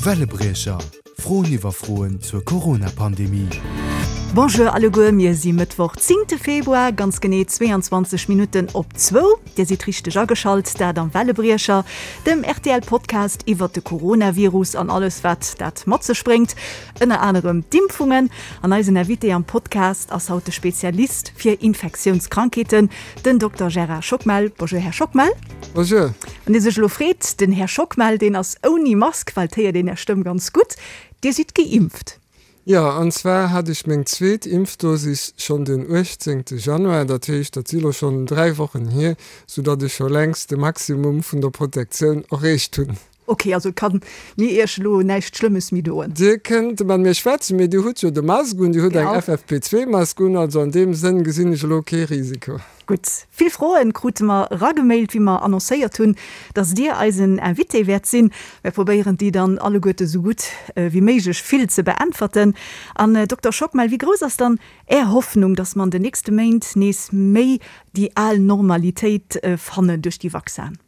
Wellebriecher, Froen iwwer Froen zur Corona-Pandemie. Bonjour alleguer, mir si Mëttwoch 10 Februar, ganz genee 22 Minutten op zwou. Dir sidd richteg ageschalt, dat am Wellebriecher, dem RTL-Podcast iwwert de Coronavirus an alles wat dat mat sech bréngt, ënner anerem d'Impfungen. An eisen Invité am Podcast ass haut de Spezialist fir Infektiounskrankheeten, Den Dokter Gérard Schockmel. Bonjour, Här Schockmel. Bonjour. Wann Dir sech elo freet, den Här Schockmel, deen ass ouni Mask, well et héiert een Är Stëmm ganz gutt. Dir sidd geimpft. Jo, an zwar hat ech meng zweet Impfdosis schonn den 18. Januar, dat heescht, dat si lo schonn 3 Wochen hier, soudatt ech scho längst de Maximum vun der Protektioun erreecht hunn. Ok, also kann mir Iech elo näischt Schlëmmes méi doen? Dir kënnt mat mir schwätzen, mee Dir hutt jo de Mask un, Dir hutt eng FFP2-Mask un, also an deem Sënn gesinn ech elo kee Risiko. Gutt, vill Froen krute mer eragemailt, wéi mer annoncéiert hunn, dass Dir eisen Invité wäert sinn. Mir probéieren déi dann alleguerte sou gutt wéi méiglech vill ze beäntwerten. An Dokter Schockmel, wéi grouss ass dann Är Hoffnung, dass mer an den nächste Méint nees méi déi al Normalitéit fannen duerch déi Vaccin?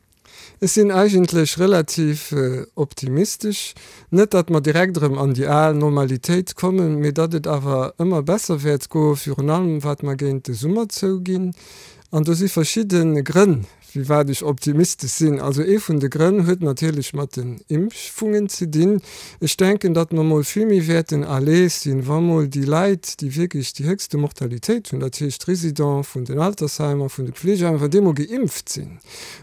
Ech sinn eigentlech relativ optimistesch. Net, datt mer direkt erëm an déi al Normalitéit kommen, mee datt et awer ëmmer besser wäert goen, virun allem wat mer géint de Summer zouginn. An do si verschidde Grënn, firwat ech optimistesch sinn. Also ee vun de Grënn huet natierlech mat den Impfungen ze dinn. Ech denken, datt mer mol vill méi wäerten à l'aise sinn, wa mol déi Leit, déi wierklech déi héchste Mortalitéit hunn, dat heescht d'Résidents vun den Altersheimer, vun de Pflegeheimer, wann déi mol geimpft sinn.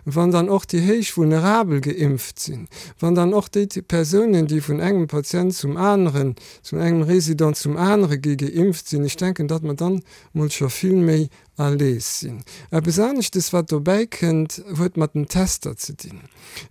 Wann dann och déi héich Vulnerabel geimpft sinn, wann dann och déi Persounen, déi vun engem Patient zum aneren, vun engem Résident zum anere gi geimpft sinn, ech denken, datt mer dann mol scho vill méi à l'aise sinn. Eppes aneschtes, wat dobäi kënnt, huet mat den Tester ze dinn.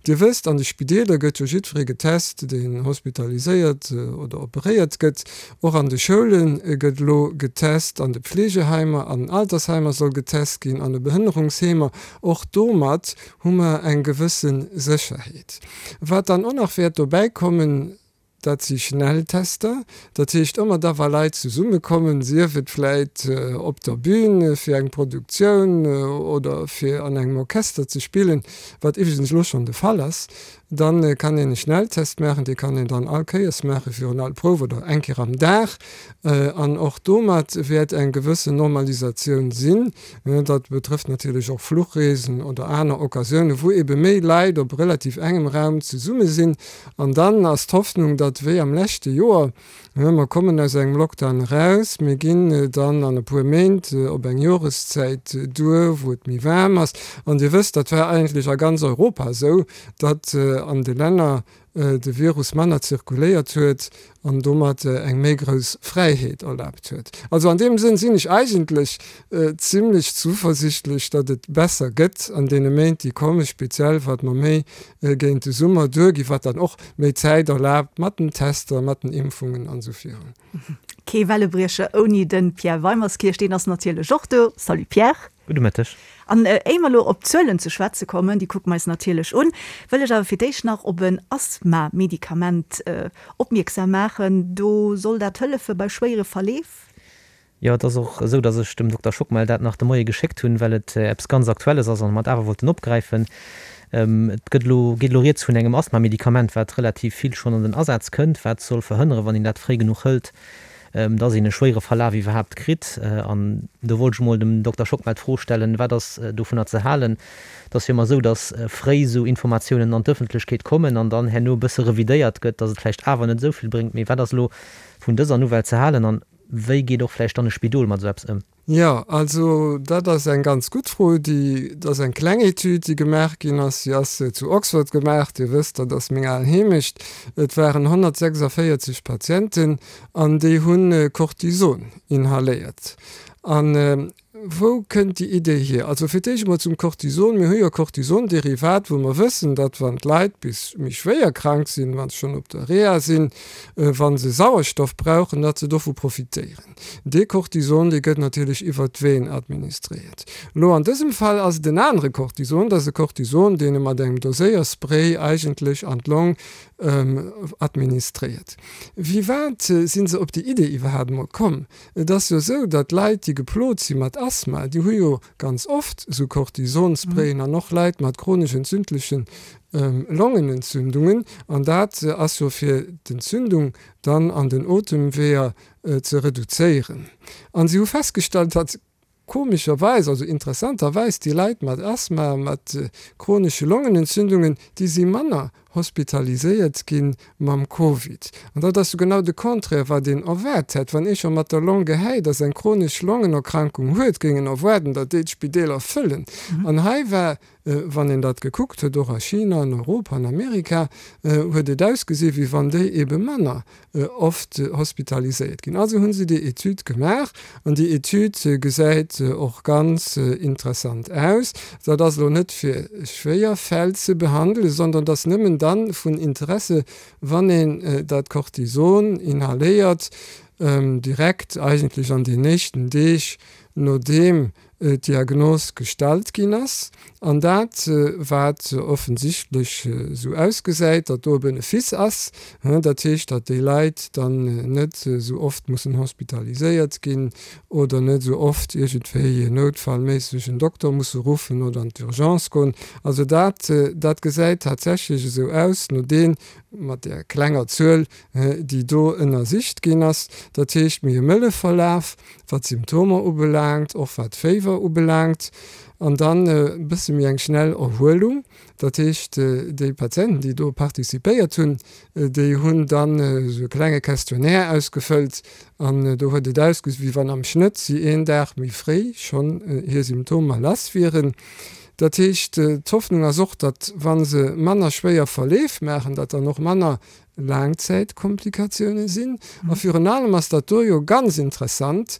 Dir wësst, an de Spideeler gëtt jo jiddweree getest, deen hospitaliséiert oder operéiert gëtt. Och an de Schoule gëtt elo getest, an de Pflegeheimer, an den Altersheimer soll getest ginn, an de Behënnerungsheemer. Och domat hu mer eng gewësse Sécherheet. Wat dann och nach wäert dobäi kommen, dat si Schnelltester. Dat heescht, ëmmer da wa Leit zesummekommen, sief et vläit op der Bühn fir eng Produktioun oder fir an engem Orchester ze spillen, wat iwwregens elo schonn de Fall ass, Dann kann een e Schnelltest maachen, dee kann een dann all Kéiers maache virun all Prouf oder eng Kéier am Dag. An och domat wäert eng gewëssen Normalisatioun sinn. Dat betrëfft natierlech och Fluchreesen oder aner Occasiounen, wou ebe méi Leit op relativ engem Raum zesumme sinn. An dann ass d'Hoffnung, datt wéi am leschte Joer, Mer kommen aus engem Lockdown eraus, mir ginn dann an e puer Méint op eng Joreszäit duer, wou et méi waarm ass. An Dir wësst, dat war eigentlech a ganz Europa esou, datt an de Länner de Virus manner zirkuléiert huet an domat eng méi grouss Fräiheet erlaabt huet. Also an deem Sënn sinn ech eigentlech zimlech zuversichtlech, datt et besser gëtt an deene Méint, déi kommen, speziell wat mer méi géint de Summer duerginn, wat dann och méi Zäit erlaabt mat den Tester, mat den Impfungen an esou virun. Kee Wellebriecher ouni de Pierre Weimerskirch, deen ass natierlech och do. Salut Pierre. Gudde Mëtteg. An éier mer elo op d'Zuelen ze schwätze kommen, déi kucke mer eis natierlech un, wëll ech awer fir d'éischt nach op en Asthma-Medikament opmierksam maachen. Do soll dat hëllefe bei schwéiere Verleef. Jo, et ass och esou, datt ech dem Dokter Schockmel dat nach de Moie geschéckt hunn, well et eppes ganz Aktuelles ass a mer et awer wollten opgräifen. Et gëtt elo, geet elo rieds vun engem Asthma-Medikament, wat relativ vill schonn an den Asaz kënnt, wat soll verhënneren, wann een dat fréi genuch hëlt, datt een e schwéiere Verlaf iwwerhaapt kritt. An do wollt ech emol dem Dokter Schockmel d'Fro stellen, Wat ass dovunner ze halen? Et ass jo ëmmer esou, datt fréi esou Informatiounen an d'Ëffentlechkeet kommen an dann herno e bësse revidéiert gëtt, datt et vläicht awer net esou vill bréngt. Mee wat ass elo vun dëser Nouvelle ze halen an Wéi geet och vläicht dann e Spidol mat esou eppes ëm? Jo, also dat ass eng ganz gutt Fro. Déi, dat ass eng kleng Etüd, déi gemaach ginn ass. Si ass zu Oxford gemaach. Dir wësst, dat ass meng al Heemecht. Et waren 146 Patienten an déi hu Cortison inhaléiert. An Wou kënnt déi Idee hier? Also fir d'éischt emol zum Cortison. Mir hu jo Cortisonderivat, wou mer wëssen, datt wann d'Leit bis méi schwéier krank sinn, wa se schonn op der Reha sinn, wa se Sauerstoff brauchen, datt se dovu profitéieren. Dee Cortison, dee gëtt natierlech iwwert d'Vene administréiert. Elo an dësem Fall ass et en anere Cortison, dat ass e Cortison, deen e mat engem Doséierspray eigentlech an d'Long administréiert. Wéi wat si se op déi Idee iwwerhaapt emol komm? Et ass jo esou, datt Leit, déi geplot si mat Asthma. Asthma, déi hu jo ganz oft esou Cortisonsprayen an och Leit mat chronesch entzündlechen Longenentzündungen. An dat ass jo fir d'Entzündung dann an den Otemweeër ze reduzéieren. An si hu festgestallt, datt Komescherweis, also interessanterweis, déi Leit mat Asthma, mat chronesche Longenentzündungen, déi si manner hospitaliséiert gi mam Covid. An dat ass jo genau de Contraire, wat een erwaart hätt. Wann ee scho mat der Long gehäit ass, eng chronesch Longenerkrankung huet, géing een erwaarden, datt déi d'Spideeler fëllen. An hei war Wann een dat gekuckt huet, och a China, an Europa, an Amerika, huet et ausgesi wéi wann déi ebe manner oft hospitaliséiert ginn. Also hu se déi Etüd gemaach an déi Etüd gesäit och ganz interessant aus. Dat ass elo net fir schwéier Fäll ze behandelen, sondern dat ass nëmmen da vun Interesse, wann een dat Cortison inhaléiert, direkt eigentlech an den éischten Deeg nodeem d'Diagnos gestallt ginn ass, an dat wat offensichtlech esou ausgesäit, datt do e Benefice ass, dat heescht, datt déi Leit dann net esou oft mussen hospitaliséiert ginn oder net esou oft iergendwéi noutfallméisseg en Dokter musse ruffen oder an d'Urgence goen. Also dat, dat gesäit tatsächlech esou aus, no deen, mat där klenger Zuel, déi do ënnersicht ginn ass, dat heescht méi e mëlle Verlaf, wat d'Symptomer ubelaangt, och wat d'Féiwer ubelaangt, an dann e bësse méi eng schnell Erhuelung. Dat heescht, déi Patienten, déi do participéiert hunn, déi hunn dann esou e klenge Questionnaire ausgefëllt an do huet et ausgesi wéi wann am Schnëtt si een Dag méi fréi schonn hir Symptomer lass wieren. Dat heescht, d'Hoffnung ass och, datt wa se manner schwéier Verleef maachen, datt dann och manner Laangzäitkomplikatioune sinn. A virun allem ass dat do jo ganz interessant,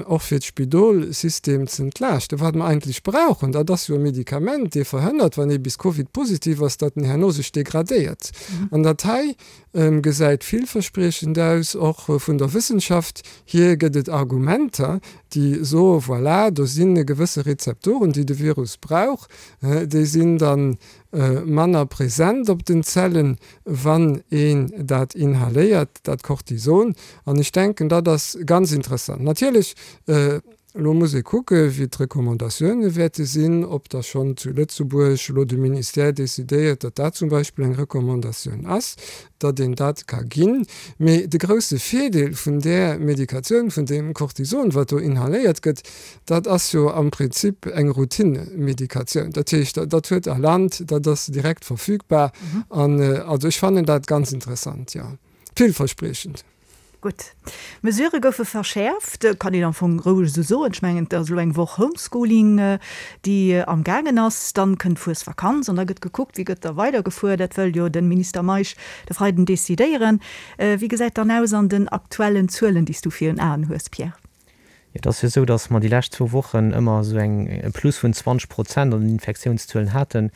och fir d'Spidolsystem z'entlaaschten. Wat mer eigentlech brauchen, dat ass jo e Medikament, dee verhënnert, wann ee bis Covid-positiv ass, datt en herno sech degradéiert. An dat hei gesäit villverspriechend aus. Och vun der Wëssenschaft hier gëtt et Argumenter, déi soe, voilà, do si gewësse Rezeptoren, déi de Virus brauch, déi sinn dann manner present op den Zellen, wann een dat inhaléiert, dat Cortison. An ech denken, dat ass ganz interessant. Natierlech, elo muss ee kucke wéi d'Recommandatioune wäerte sinn, ob da schonn zu Lëtzebuerg elo de Ministère decidéiert, datt dat zum Beispill eng Recommandatioun ass, datt een dat ka ginn. Mee de grousse Virdeel vun där Medikatioun, vun deem Cortison, wat do inhaléiert gëtt, Dat ass jo am Prinzip eng Routinemedikatioun. Dat heescht, dat huet a Land, dat ass direkt verfügbar. An also ech fannen dat ganz interessant, jo. Villverspriechend. Gutt. D'Mesurë goufe verschäerft, kann een am Fong roueg esou soen. Ech mengen, et ass elo eng Woch Homeschooling, déi am gaangen ass. Dann kënnt d'Fuesvakanz an da gëtt gekuckt, wéi gëtt da weidergefuer. Dat wëll jo de Minister Meisch de Freiden decidéieren. Wéi gesäit dann aus an den aktuellen Zuelen, déi s du virun Aen hues, Pierre? Et ass jo esou, datt mer déi lescht zwou Wochen ëmmer esou eng e Plus vun 20 Prozent an den Infektiounszuelen haten,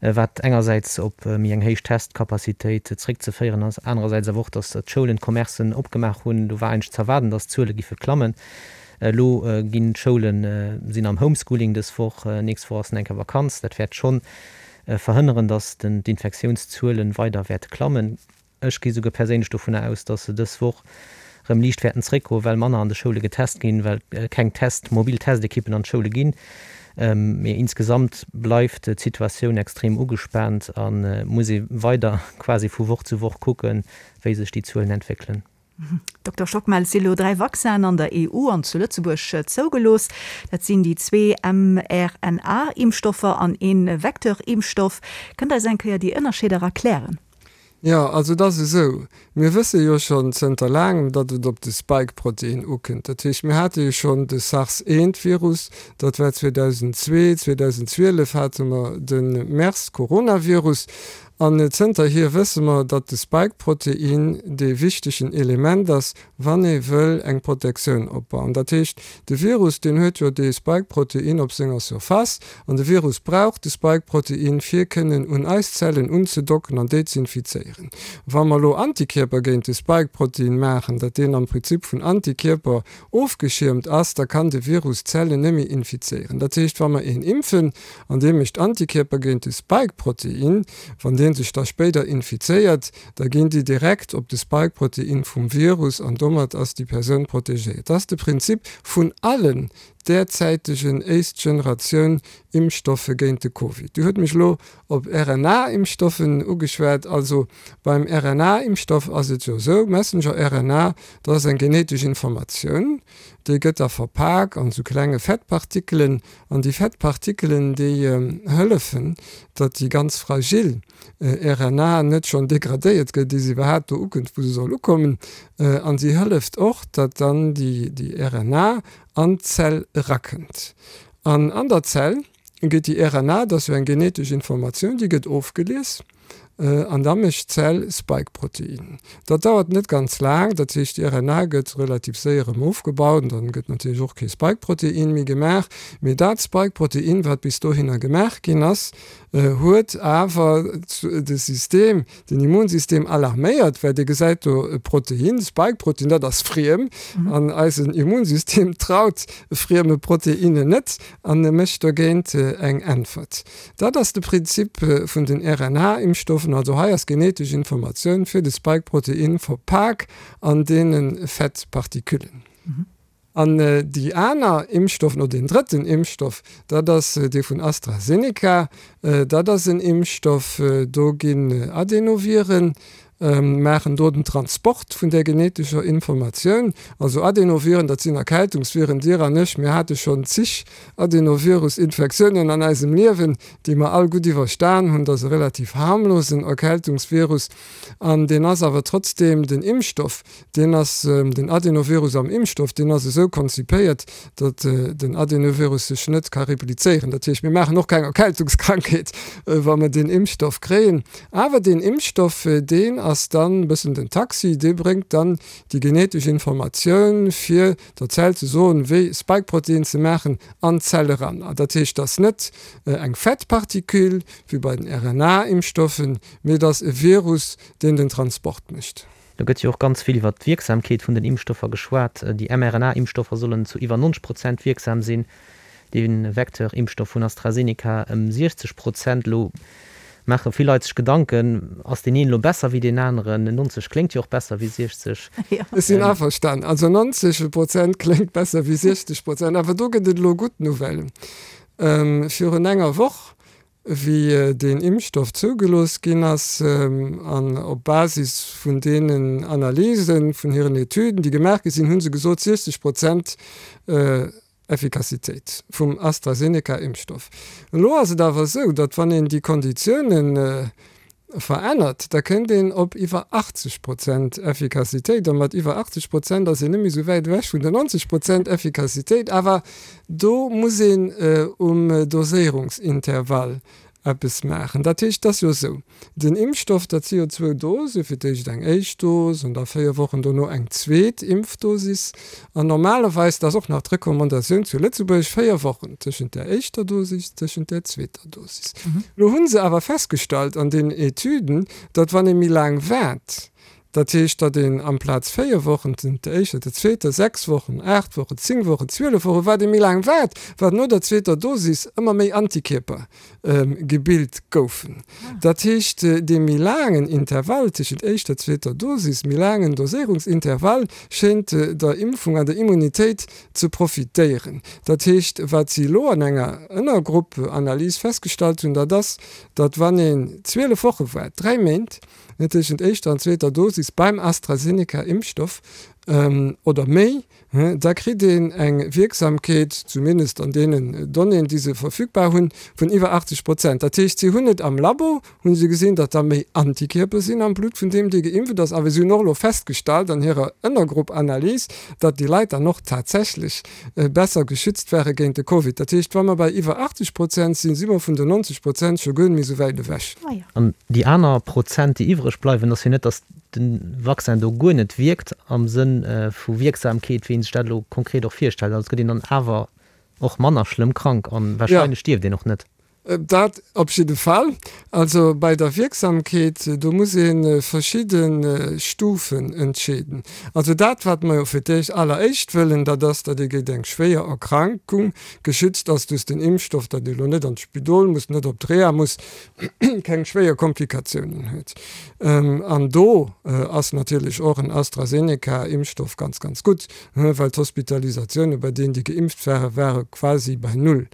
wat engersäits op méi eng héich Testcapacitéit zréckzeféieren ass, anerersäits awer och, datt d'Schoulen, d'Commercen opgemaach hunn. Do war eigentlech ze erwaarden, datt d'Zuele giffe klammen. Elo ginn d'Schoule sinn am Homeschooling dës Woch, nächst Woch ass en eng Kéier Vakanz. Dat wäert schonn verhënneren, datt d'Infektiounszuele weider wäerte klammen. Ech gi souguer perséinlech dovunner aus, dass se dës Woch rëm liicht wäerten zréckgoen, well manner an de Schoule getest ginn, well keng Test, mobil Testekippen an d'Schoule ginn. Mee insgesamt bleift d'Situatioun extrem ugespaant a muss ee weider quasi vu Woch zu Woch kucken, wéi sech déi Zuelen entwéckelen. Dokter Schockmel, et si elo 3 Vaccinen an der EU an zu Lëtzebuerg zougelooss. Dat sinn déi zwee mRNA-Impfstoffer an ee Vecteur-Impfstoff. Kënnt Der eis eng Kéier déi Ënnerscheeder erklären? Jo, also et ass esou, mir wësse jo schonn zënter laangem, datt et op de Spike-Protein ukënnt. Dat heescht, mir hate jo schonn de SARS-1-Virus, dat war 2002, 2012 hate mer de MERS-Coronavirus. An zënterhier wësse mer, datt de Spike-Protein dee wichtegen Element ass, wann ee wëll eng Protektioun opbauen. Dat heescht, de Virus, deen huet jo dee Spike-Protein op senger Surface, an de Virus brauch de Spike-Protein, fir kënnen un eis Zellen unzedocken an déi z'infizéieren. Wa mer elo Antikierper géint de Spike-Protein maachen, dat deen am Prinzip vun Antikierper ofgeschiermt ass, da kann de Virus d'Zellen net méi infizéieren. Dat heescht, wa mer een impfen an dee mécht Antikierper géint de Spike-Protein, wann dee sech da spéider infizéiert, da ginn déi direkt op de Spike-Protein vum Virus an domat ass déi Persoun protegéiert. Dat ass de Prinzip vun allen derzäitegen éischt-Generatioun Impfstoffe géint de Covid. Dir hutt mech elo op RNA-Impfstoffen ugeschwat. Also beim RNA-Impfstoff ass et jo esou, Messenger-RNA, dat ass eng genetesch Informatioun, déi gëtt da verpak an esou klenge Fettpartikelen. An déi Fettpartikelen, déi hëllefen, datt déi ganz fragil RNA net schonn degradéiert gëtt, ier se iwwerhaapt do ukënnt, wou se soll ukommen. An si hëlleft och, datt dann déi RNA an d'Zell erakënnt. An an der Zell gëtt déi RNA, dat ass jo eng genetesch Informatioun, déi gëtt ofgelies an da mécht d'Zell Spike-Protein. Dat dauert net ganz laang, dat heescht déi RNA gëtt relativ séier erëm ofgebaut an dann gëtt natierlech och kee Spike-Protein méi gemaach. Mee dat Spike-Protein, wat bis dohinner gemaach ginn ass, huet awer de System, den Immunsystem alarméiert, well dee gesäit do e Protein, Spike-Protein, dat ass friem an eisen Immunsystem traut frieme Proteinen net an e mécht dogéint eng Äntwert. Dat ass de Prinzip vun den RNA-Impfstoffen. Also hei ass genetesch Informatioun fir de Spike-Protein verpak an deene Fettpartiküllen. An déi aner Impfstoffen, oder deen drëtten Impfstoff, dat ass dee vun AstraZeneca, dat ass en Impfstoff, do ginn Adenoviren, maachen do den Transport vun där genetescher Informatioun. Also Adenoviren, dat sinn Erkältungsviren. Dir an ech, mir hate schonn zig Adenovirus-Infektiounen an eisem Liewen, déi mer all gutt iwwerstan hunn. Dat ass e relativ harmlosen Erkältungsvirus an deen ass awer trotzdeem den Impfstoff, Deen ass, den Adenovirus am Impfstoff, deen ass esou konzipéiert, datt den Adenovirus sech net ka replizéieren. Dat heescht, mir maachen och keng Erkältungskrankheet, wa mer deen Impfstoff kréien. Awer deen Impfstoff, deen ass dann e bëssen den Taxi, dee bréngt dann déi genetesch Informatioun, fir der Zell ze soen, wéi Spike-Protein ze maachen, an d'Zell eran. Dat heescht, et ass net eng Fettparticule wéi bei den RNA-Impfstoffen, mee et ass e Virus, deen den Transport mécht. Do gëtt jo och ganz vill iwwer d'Wierksamkeet vun den Impfstoffer geschwat. Déi mRNA-Impfstoffer sollen zu iwwer 90 Prozent wierksam sinn, de Vecteur-Impfstoff vun AstraZeneca ëm 60 Prozent. Elo maache vill Leit sech Gedanken, ass deen een elo besser wéi deen aneren? 90 kléngt jo och besser wéi 60. Ech sinn averstan. Also 90 Prozent kléngt besser wéi 60 Prozent. Awer do gëtt et elo gutt Nouvellen. Virun enger Woch wéi deen Impfstoff zougelooss ginn ass, an op Basis vun deenen Analysen, vun hiren Etüden, déi gemaach gi sinn, hu se gesot, 60 Prozent Effikassitéit vum AstraZeneca-Impfstoff. Elo ass et awer esou, datt wann een déi Konditiounen verännert, da kënnt een op iwwer 80 Prozent Effikassitéit, a mat iwwer 80 Prozent ass een net méi esou wäit ewech vun der 90 Prozent Effikassitéit, awer do muss een um Doséierungsintervall eppes maachen. Dat heescht, et ass jo esou, den Impfstoff, dat si jo zwou Dose, fir d'éischt eng éischt Dos an da 4 Wochen dono eng zweet Impfdosis, an normalerweis, dat ass och nach d'Recommandatioun zu Lëtzebuerg, 4 Wochen tëschent där éischter Dosis, tëschent där zweeter. Dosis. Elo hu se awer festgestallt an deenen Etüden, datt wann ee méi laang waart, dat heescht, datt een amplaz 4 Wochen tëschent der éischter, der zweeter, 6 Wochen, 8 Wochen, 10 Wochen, 12 Wochen, wat ee méi laang waart, wat no der zweeter Dosis ëmmer méi Antikierper gebilt goufen. Dat heescht, dee méi laangen Intervall tëschent éischter, zweeter Dosis, méi laangen Doséierungsintervall schéint der Impfung an der Immunitéit ze profitéieren. Dat heescht, wat si elo an enger Ënnergrupp-Analys festgestallt hunn, dat ass, datt wann een 12 Woche waart, 3 Méint, tëschent éischter an zweeter Dosis beim AstraZeneca-Impfstoff oder méi, da kritt een eng Wierksamkeet, zumindest an deenen Donnéeën, déi se verfügbar hunn, vun iwwer 80 Prozent. Dat heescht, si hunn et am Labo Hunn se gesinn, datt da méi Antikierper sinn am Blutt vun deem, dee geimpft ass. Awer si hunn och elo festgestallt an hirer Ënnergrupp-Analys, datt déi Leit dann och tatsächlech besser geschützt ware géint de Covid. Dat heescht, wa mer bei iwwer 80 Prozent sinn, si mer vun den 90 Prozent scho guer net méi esou wäit ewech. An déi aner Prozent, déi iwwreg bleiwen, ass jo net, datt de Vaccin do guer net wierkt am Sënn vu Wierksamkeet, wéi ee sech dat elo konkret och virstellt. Also et gëtt een dann awer och manner schlëmm krank an warscheinlech stierft een och net. Dat op jidde Fall. Also bei der Wierksamkeet, do muss ee verschidde Stufen entscheeden. Also dat, wat mer jo fir d'éischt alleréischt wëllen, dat ass, datt ee géint eng schwéier Erkrankung geschützt ass duerch den Impfstoff, datt ee lo net an d'Spidol muss, net op d'Reha muss, keng schwéier Komplikatiounen huet. An do ass natierlech och en AstraZeneca-Impfstoff ganz, ganz gutt, well d'Hospitalisatioune bei deenen, déi geimpft waren, ware quasi bei null.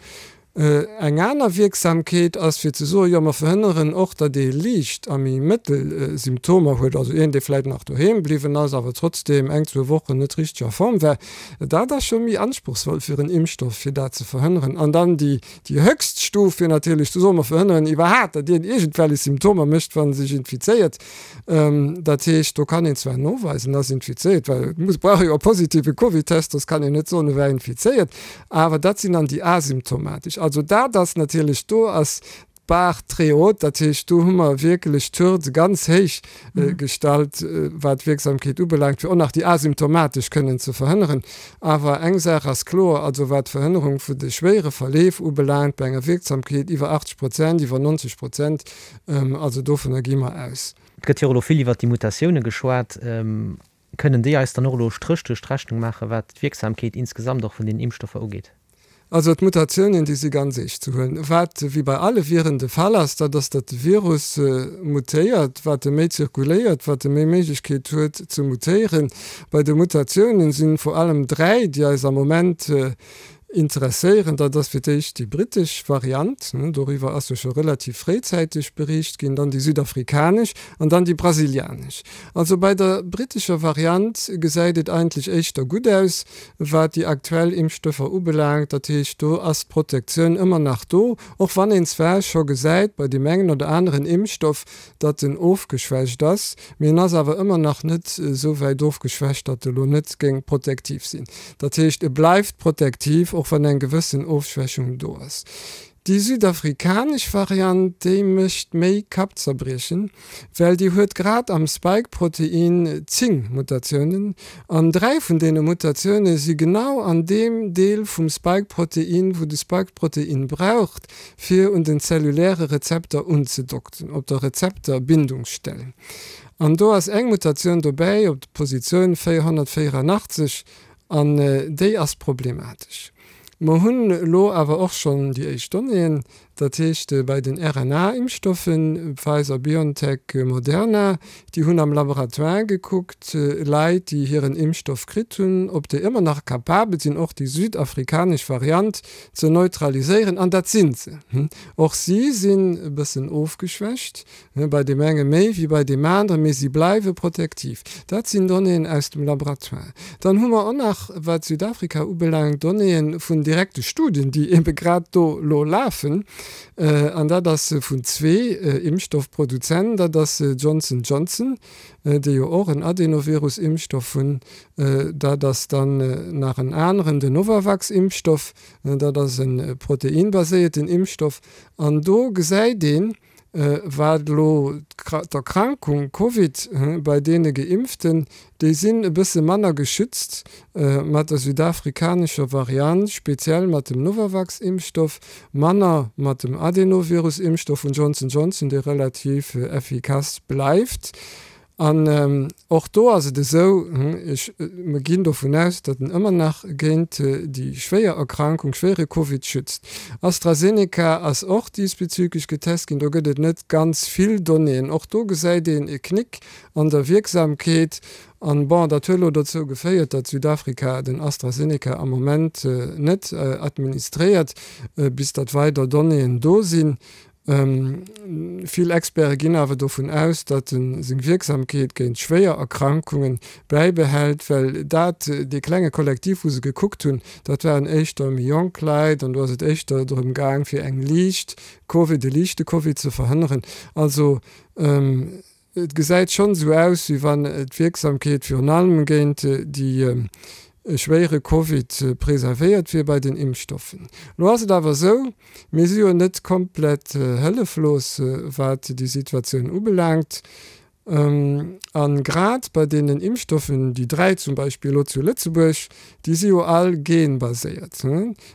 Eng aner Wierksamkeet ass fir ze soen, jo mer verhënneren och, datt ee liicht a méi mëttel Symptomer huet, also een dee vläit nach doheem bliwwen ass, awer trotzdeem eng, zwou Wochen net richteg a Form war. Dat ass scho méi anspruchsvoll fir en Impfstoff, fir dat ze verhënneren. An dann déi déi höchst Stuf wier natierlech ze soen, mer verhënneren iwwerhaapt, datt een iergendwellech Symptomer mécht, wa sech infizéiert. Dat heescht, do kann een zwar noweisen, en ass infizéiert, well et muss, brauch jo e positive Covid-Test, soss kann een net soen, e war infizéiert, awer dat sinn dann déi asymptomatesch. Also dat ass natierlech, do ass d'Bar très haute, dat heescht, do hu mer wierklech d'Hürde ganz héich gestallt, wat d'Wierksamkeet ubelaangt, fir och nach déi asymptomatesch kënnen ze verhënneren. Awer eng Saach ass kloer, also wat d'Verhënnerung vun de schwéiere Verleef ubelaangt, bei enger Wierksamkeet iwwer 80 Prozent, iwwer 90 Prozent, Also dovunner gi mer aus. Et gëtt jo och elo vill iwwert déi Mutatioune geschwat. Kënnen déi eis dann och elo e Stréch duerch d'Rechnung maachen, wat d'Wierksamkeet insgesamt och vun den Impfstoffer ugeet? Also d'Mutatiounen, déi si ganz eescht ze huelen. Wat wéi bei alle Viren de Fall ass, dat ass, datt de Virus mutéiert. Wat e méi zirkuléiert, wat e méi Méiglechkeet huet ze mutéieren. Bei de Mutatiounen si vor allem 3, déi eis am Moment Interesséieren, dat ass fir d'éischt déi brittesch Variant, doriwwer ass jo scho relativ fréizäiteg beriicht ginn, dann déi südafrikanesch an dann déi brasilianesch. Also bei der brittescher Variant gesäit et eigentlech éischter gutt aus, wat déi aktuell Impfstoffer ubelaangt. Dat heescht, do ass d'Protektioun ëmmer nach do, och wann een zwar scho gesäit bei deem engen oder aneren Impfstoff, datt en ofgeschwächt ass, mee en ass awer ëmmer nach net esou wäit ofgeschwächt, datt e lo net géing protektiv sinn. Dat heescht, e bleift protektiv, och wann eng gewëssen Ofschwächung do ass. Déi südafrikanesch Variant, déi mécht méi Kappzerbriechen, well déi huet grad am Spike-Protein 10 Mutatiounen, an 3 vun deene Mutatioune si genau an deem Deel vum Spike-Protein, wou de Spike-Protein braucht, fir un den zelluläre Rezepter unzedockten, op der Rezepterbindungsstell. An do ass eng Mutatioun dobäi op der Positioun 484 an déi ass problematesch. Mer hunn elo awer och schonn déi éischt Donnéeën, dat heescht bei den RNA-Impfstoffen, Pfizer, BioNTech, Moderna, déi hunn am Laboratoire gekuckt, Leit, déi hiren Impfstoff kritt hunn, ob déi ëmmer nach capabel sinn, och déi südafrikanesch Variant ze neutraliséieren, an dat sinn se. Och si sinn e bëssen ofgeschwächt, bei deem enge méi wéi bei deem aneren, mee si bleiwe protektiv. Dat sinn Donnéeën aus dem Laboratoire. Dann hu mer och nach, wat Südafrika ubelaangt, Donnéeë vun direkte Studien, déi ebe grad do elo lafen, an dat ass vun zwee Impfstoffproduzenten, dat ass Johnson Johnson, déi jo och en Adenovirus-Impfstoff hunn, Dat ass dann nach en aneren, den Novavax-Impfstoff. Dat ass e proteinbaséierten Impfstoff. An do gesäit een, wat elo d'Erkrankung Covid bei deene Geimpften, déi sinn e bësse manner geschützt mat der südafrikanescher Variant, speziell mat dem Novavax-Impfstoff, manner mat dem Adenovirus-Impfstoff vun Johnson Johnson, dee relativ effikass bleift. An och do ass et esou, ech, mer ginn dovun aus, datt en ëmmer nach géint déi schwéier Erkrankung, schwéiere Covid schützt. AstraZeneca ass och diesbezüglech getest ginn, do gëtt et net ganz vill Donnéeën. Och do gesäit een e Knick an der Wierksamkeet. An, bon, dat huet elo dozou geféiert, datt Südafrika den AstraZeneca am Moment net administréiert, bis datt weider Donnéeën do sinn. Vill Experte ginn awer dovun aus, datt e seng Wierksamkeet géint schwéier Erkrankunge bäibehält, well dat dee klenge Kollektiv, wou se gekuckt hunn, dat waren éischter méi jonk Leit an do ass et éischter drëm gaang, fir eng liicht Covid, e liichte Covid ze verhënneren. Also Et gesäit schonn esou aus, wéi wann d'Wierksamkeet virun allem géint déi schwéiere Covid preservéiert wier bei den Impfstoffen. Elo ass et awer esou, mir si jo net komplett hëlleflos, wat déi Situatioun ubelaangt. A grad bei deenen Impfstoffen, déi 3 zum Beispill elo zu Lëtzebuerg, déi si jo all genbaséiert,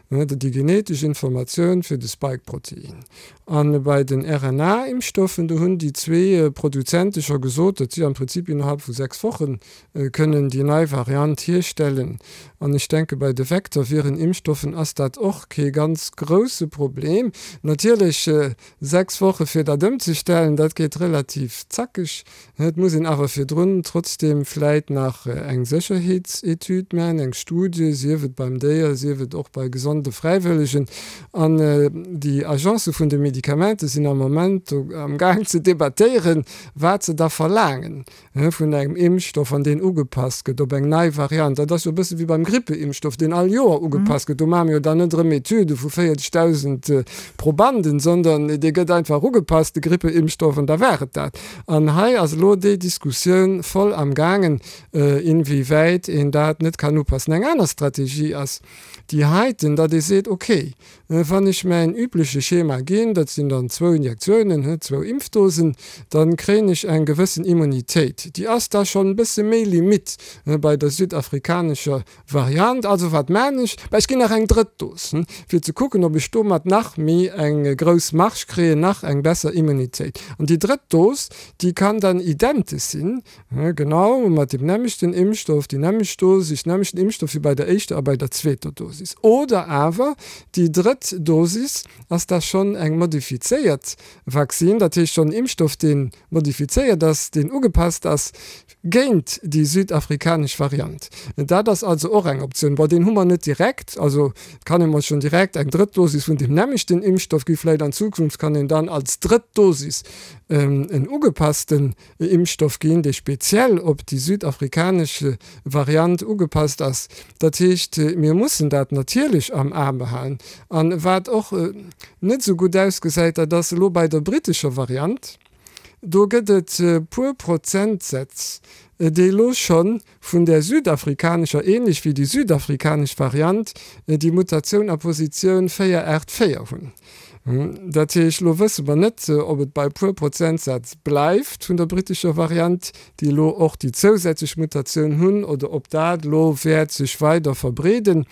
déi genetesch Informatioun fir de Spike-Protein. A bei den RNA-Impfstoffen, do hunn déi zwee Produzente scho gesot, datt si am Prinzip innerhalb vu 6 Woche kënnen déi nei Variant hierstellen. An ech denke bei de Vektorviren-Impfstoffen ass dat och kee ganz grousse Problem. Natierlech 6 Woche fir dat ëmzestellen, dat geet relativ zackeg. Et muss een awer virdrun trotzdeem vläit nach eng Sécherheetsetüd maachen, eng Studie, sief et beim Déier, sief et och bei gesonde Fräiwëllegen. An déi Agence vun de Medikamente sinn am Moment do amgaang ze debattéieren, wat se da verlaangen vun engem Impfstoff, wann deen ugepasst gëtt op eng nei Variant. Dat ass jo e bësse wéi beim Grippeimpfstoff, deen all Joer ugepasst gëtt. Do maache mir jo dann net erëm Etüde vu 40.000 Probanden, sondern dee gëtt einfach ugepasst, de Grippeimpfstoff, an da war et dat. An hei ass elo déi Diskussioun voll am gaangen, inwiewäit een dat net kann upassen. Eng aner Strategie ass déi heiten, datt ee seet, okay, wann ech mäin übleche Schema ginn, dat sinn dann zwou Injektiounen, zwou Impfdosen, da kréien ech eng gewëssen Immunitéit. Déi ass da schonn e bësse méi limite bei der südafrikanescher Variant. Also wat maan ech? Bah ech ginn nach eng drëtt Dos, fir ze kucken ob ech domat nach méi eng grouss Marge kréien, nach eng besser Immunitéit. An déi drëtt Dos, déi kann dann identesch sinn, genau mat deem nämmlechten Impfstoff, déi nämmlecht Dosis, nämmlechten Impfstoff wéi bei der éischter a bei der zweeter Dosis. Oder awer déi drëtt Dosis ass da schonn eng modifizéiert Vaccine, dat heescht schonn en Impfstoff deen modifizéiert ass, deen ugepasst ass géint déi südafrikanesch Variant. Dat ass also och eng Optioun. Bon, deen hu mer net direkt, also et kann ee mol schonn direkt eng drëtt Dosis vun deem nämmlechten Impfstoff gi. Vläicht an Zukunft kann een dann als drëtt Dosis en ugepassten Impfstoff ginn, dee speziell op déi südafrikanesch Variant ugepasst ass. Dat heescht, mir mussen dat natierlech am A behalen. A wat och net esou gutt ausgesäit, dat ass elo bei der brittescher Variant. Do gëtt et puer Prozentsätz, déi elo scho vun där südafrikanescher, ähnlech wéi déi südafrikanesch Variant, déi Mutatioun a Positioun 484 hunn. Dat heescht, elo wësse mer net, ob et bei e puer Prozentsätz bleift vun der brittescher Variant, déi elo och déi zousätzlech Mutatioun hunn, oder ob dat elo wäert sech weider verbreeden.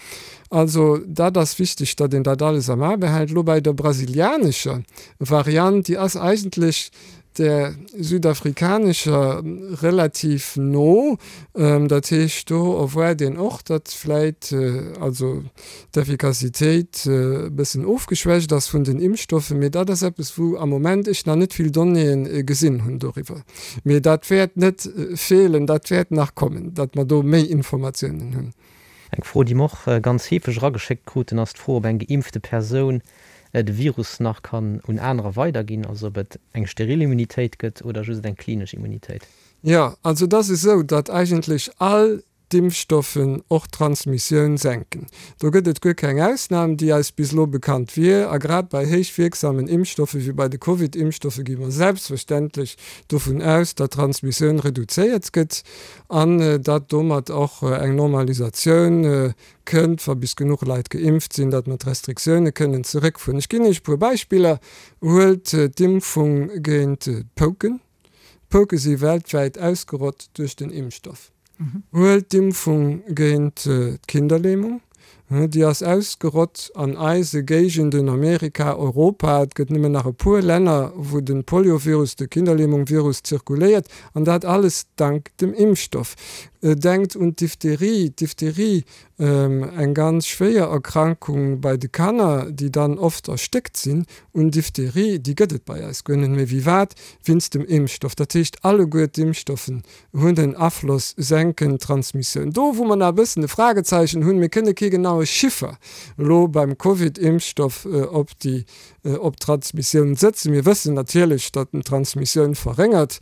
Also dat ass wichteg, datt een dat alles am A behält. Elo bei der brasilianescher Variant, déi ass eigentlech där südafrikanescher relativ no. Dat heescht, do erwaart een och, datt vläit also d'Effikassitéit e bëssen ofgeschwächt ass vun den Impfstoffen. Mee dat ass eppes, wou am Moment ech nach net vill Donnéeë gesinn hunn doriwwer. Mee dat wäert net feelen, dat wäert nach kommen, datt mer do méi Informatiounen hunn. Eng Fro, déi mer och ganz heefeg erageschéckt kruten, ass d'Fro, ob eng geimpfte Persoun de Virus nach kann un anerer weiderginn, also ob et eng steril Immunitéit gëtt oder just eng klinesch Immunitéit. Jo, also et ass esou, datt eigentlech all d'Impfstoffen och d'Transmissioun senken. Do gëtt et guer keng Ausnam, déi eis bis elo bekannt wier. A grad bei héich wierksamen Impfstoffe wéi bei de Covid-Impfstoffe gi mer selbstverständlech dovun aus, datt d'Transmissioun reduzéiert gëtt. An datt domat och eng Normalisatioun kënnt, wa bis genuch Leit geimpft sinn, datt mer d'Restriktioune kënnen zeréckfueren. Ech ginn Iech e puer Beispiller. Huelt d'Impfung géint d'Pouken. D'Pouke si weltwäit ausgerott duerch den Impfstoff. Huelt d'Impfung géint d'Kinderlähmung. Déi ass ausgerott an eise Géigenden, Amerika, Europa. Et gëtt nëmmen nach e puer Länner, wou de Poliovirus, de Kinderlähmung-Virus zirkuléiert, an dat alles dank dem Impfstoff. Denkt un d'Diphtherie. D'Diphtherie, eng ganz schwéier Erkrankung bei de Kanner, déi dann oft erstéckt sinn un Diphtherie, déi gëtt et bei eis guer net méi. Wéi wat? Wéinst dem Impfstoff. Dat heescht, alleguer d'Impfstoffen hunn en Afloss, senken d'Transmissioun. Do wou mer nach e bëssen e Fragezeichen hunn, mir kënne kee genaue Chiffer elo beim Covid-Impfstoff op déi, op d'Transmissioun sëtzen. Mir wëssen natierlech, datt en d'Transmissioun verréngert.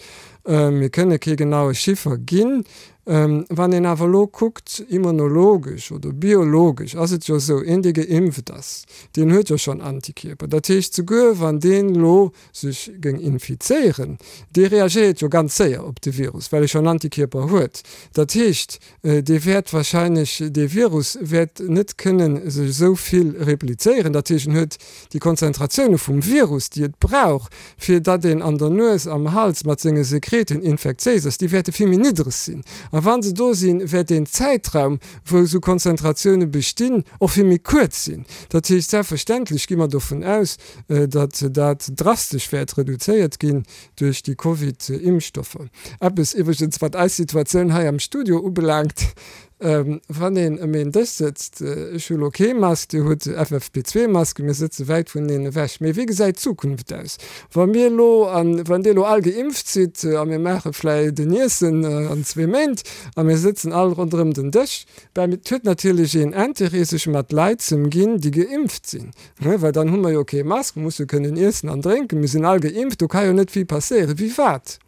Mir kënne kee genaue Chiffer ginn. Wann een awer elo kuckt, immunologesch oder biologesch ass et jo esou, een dee geimpft ass, deen huet jo schonn Antikierper. Dat heescht, souguer wann deen elo sech géing infizéieren, dee reagéiert jo ganz séier op de Virus, well e schonn Antikierper huet. Dat heescht, dee wäert wahrscheinlech, dee Virus wäert net kënne sech esou vill replizéieren. Dat heescht, en huet déi Konzentratioune vum Virus, déi et brauch, fir datt een an der Nues, am Hals mat senge Sekreten infektiéis ass, déi wäerte vill méi niddreg sinn. A wa se do sinn, wäert deen Zäitraum, wou esou Konzentratioune bestinn, och vill méi kuerz sinn. Dat heescht, selbstverständlech gi mer dovun aus, datt dat drastesch wäert reduzéiert ginn duerch déi Covid-Impfstoffer. Eppes iwwregens, wat eis Situatioun hei am Studio ubelaangt, Wann een ëm een Dësch sëtzt, ech hu lo kee Mask, Dir hutt FFP2-Masken, mir sëtze wäit vuneneen ewech, mee wéi gesäit d'Zukunft aus, wa mir elo an wann Dir elo all geimpft sidd a mir maache vläicht en Iessen an zwee Méint a mir sëtzen all ronderëm den Dësch? Ben, et huet natierlech een Interêt, sech mat Leit z'ëmginn, déi geimpft sinn. Well dann hu mer jo kee Mask, musse kënnen iessen an drénken, mir sinn all geimpft, do ka jo net vill passéieren. Wéi wat?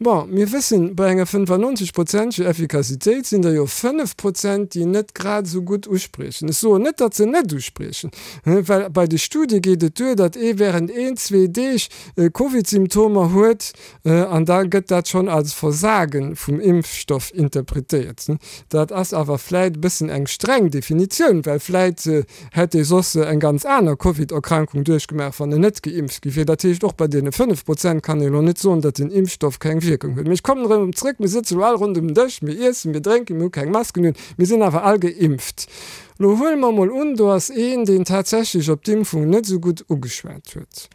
Bon, mir wëssen, bei enger 95 prozenteger Effikassitéit sinn der jo 5 Prozent, déi net grad esou gutt uspriechen. Ech soen net, datt se net uspriechen, well bei de Studie geet et duer, datt ee während een, zwee Deeg Covid-Symptomer huet an da gëtt dat schonn als Versage vum Impfstoff interpretéiert. Dat ass awer vläit e bëssen eng streng Definitioun, well vläit Hätt ee soss eng ganz aner Covid-Erkrankung duerchgemaach, wann en net geimpft gi wier. Dat heescht, och bei deene 5 Prozent kann ee elo net soen, datt den Impfstoff keng Wierkung huet. Mee ech kommen erëm zrëck, Mir sëtze elo all ronderëm den Dësch, mir iessen, mir drénken, mir hu keng Masken un, mir sinn awer all geimpft. Elo huele mer emol un, do ass een, deen tatsächlech op d'Impfung net esou gutt ugeschwat huet,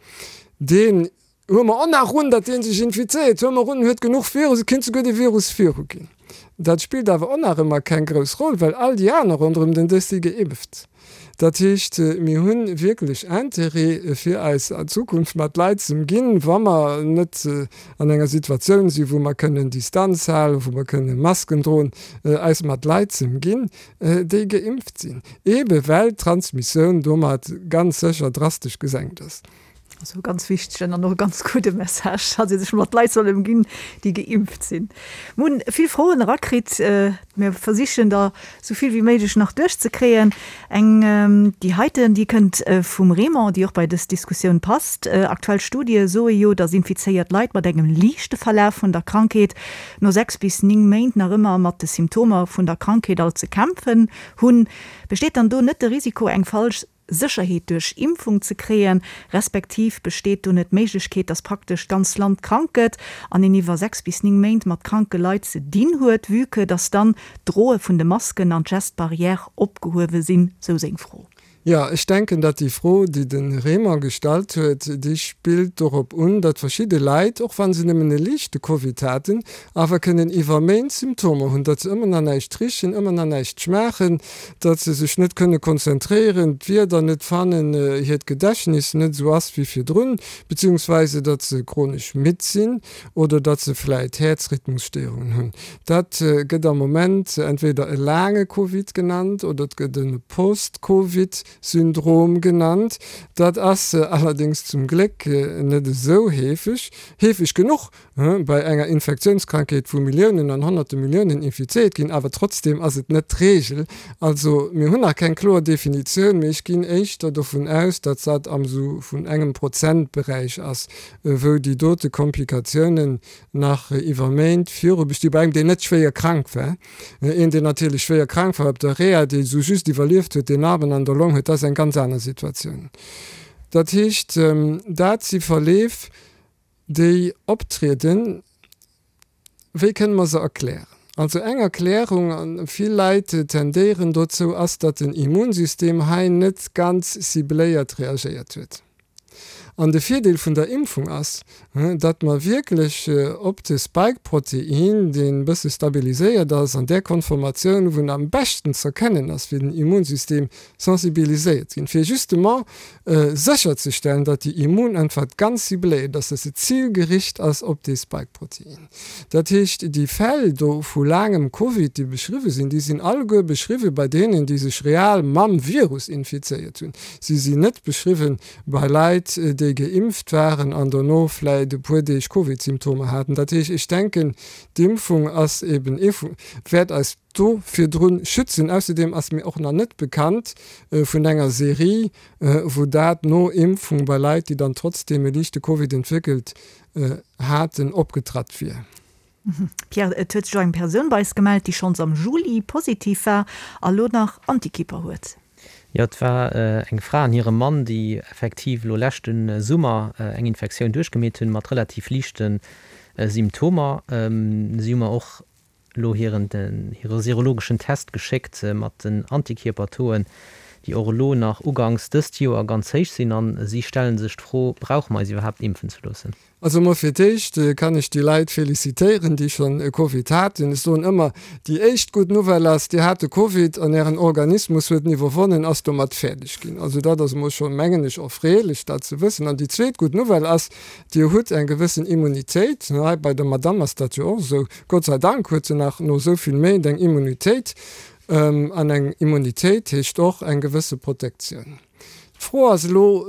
deen Huele mer och nach un, datt dee sech infizéiert, huele mer un, en huet genuch Virus, et kéint souguer de Virus viruginn. Dat spillt awer och nach ëmmer keng grouss Roll, well all déi aner ronderëm den Dësch si geimpft. Dat heescht, mir hu wierklech Intérêt, fir eis an Zukunft mat Leit z'ëmginn, wa mer net an enger Situatioun sinn, wou mer kënnen Distanz halen, wou mer kënne Masken droen, eis mat Leit z'ëmginn, déi geimpft sinn, eebe well d'Transmissioun domat ganz sécher drastesch gesenkt ass. Also e ganz wichtegen an och e ganz gudde Message, datt ee sech mat Leit soll ëmginn, déi geimpft sinn. Mir hunn vill Froen erakritt. Mir versichen der esou vill wéi méiglech nach duerchzekréien. Eng, déi heiten, déi kënnt vum Raymond, déi och bei dës Diskussioun passt. Aktuell Studie soe jo, datt infizéiert Leit mat engem liichte Verlaf vun der Krankheet no 6 bis 9 Méint nach ëmmer mat de Symptomer vun der Krankheet alt ze kämpfen hunn. Besteet dann do net de Risiko, eng falsch Sécherheet duerch Impfung ze kréien, respektiv besteet do net d'Méiglechkeet, dass praktesch d'ganz Land krank gëtt an een iwwer 6 bis 9 Méint mat kranke Leit ze dinn huet, vue que dass dann d'Droe vun de Masken an d'Gestes barrières opgehuewe sinn, sou seng Fro. Jo, ech denken, datt déi Fro, déi de Raymond gestallt huet, déi spillt dorop un, datt verschidde Leit, och wa se nëmmen e liichte Covid haten, awer kënnen iwwer Méint Symptomer hunn, datt se ëmmer nach näischt richen, ëmmer nach näischt schmaachen, datt se sech net kënne konzentréieren, d'Wierder net fannen, hiert Gedächtnis net esou ass wéi virdrun, beziehungsweise datt se chronesch midd sinn oder datt se vläit Häerzrhythmusstéierungen hunn. Dat gëtt am Moment entweder e laange Covid genannt oder et gëtt e Post-Covid-Syndrom genannt. Dat ass allerdéngs zum Gléck net esou heefeg, heefeg genuch, bei enger Infektiounskrankheet, wou Milliounen an honnerte Milliounen infizéiert ginn, awer trotzdeem ass et net d'Reegel. Also mir hunn nach keng kloer Definitioun, mee ech ginn éischter dovun aus, datt dat am sou vun engem Prozentberäich ass, wou déi dote Komplikatiounen nach iwwer Méint viru bestinn, bei engem, deen net schwéier krank war. Een, deen natierlech schwéier krank war op der Reha, dee sou just iwwerlieft huet, deen Narben an der Long huet, dat ass eng ganz aner Situatioun. Dat heescht, dat si Verleef, Déi optrieden, wéi kënne mer se erklären? Also eng Erklärung, a vill Leit tendéieren dozou, ass, datt den Immunsystem hei net ganz cibléiert reagéiert huet. An de Virdeel vun der Impfung ass, datt mer wierklech op de Spike-Protein, deen e bësse stabiliséiert ass, an där Konformatioun, wou en am beschten z'erkennen ass fir den Immunsystem, sensibiliséiert ginn, fir justement sécherzestellen, datt déi Immunäntwert ganz cibléiert ass, datt se zilgericht ass op dee Spike-Protein. Dat heescht, déi Fäll do vu laangem Covid, déi beschriwwe sinn, déi sinn alleguer beschriwwe bei deenen, déi sech real mam Virus infizéiert hunn. Si sinn net beschriwwe bei Leit, déi. déi geimpft waren an dono vläit e puer Deeg Covid-Symptomer haten. Dat heescht, ech denken, d'Impfung ass eben ee vu, wäert eis do virdrun schützen. Ausserdeem ass mir och nach net bekannt vun enger Serie, wou dat no Impfung bei Leit, déi dann trotzdeem e liichte Covid entwéckelt haten, opgetratt wier. Pierre, et huet sech och eng Persoun bei eis gemellt, déi schonns am Juli positiv war a lo nach Antikierper huet. Jo, et war eng Fra an hire Mann, déi effektiv elo leschte Summer eng Infektioun duerchgemeet hunn, mat relativ liichte Symptomer. Si hu mer och elo hiren hire serologeschen Test geschéckt mat den Antikierpertauxen, déi och elo nach uganks dëst Joer ganz héich sinn. A si stelle sech d'Fro, Brauche mer eis iwwerhaapt impfen ze loossen? Also emol fir d'éischt kann ech déi Leit felicitéieren, déi schonn e Covid haten. Ech soen ëmmer, déi éischt gutt Nouvelle ass, Dir hat de Covid an Ären Organismus huet en iwwerwonnen, ass domat fäerdeg ginn. Also dat ass emol schonn, mengen ech, erfreelech, dat ze wëssen. An déi zweet gutt Nouvelle ass, Dir hutt eng gewëssen Immunitéit. Hei bei der Madamm ass dat jo och esou. Gott sei Dank huet se nach no esou vill Méint eng Immunitéit. An eng Immunitéit heescht och eng gewësse Protektioun. D'Fro ass elo,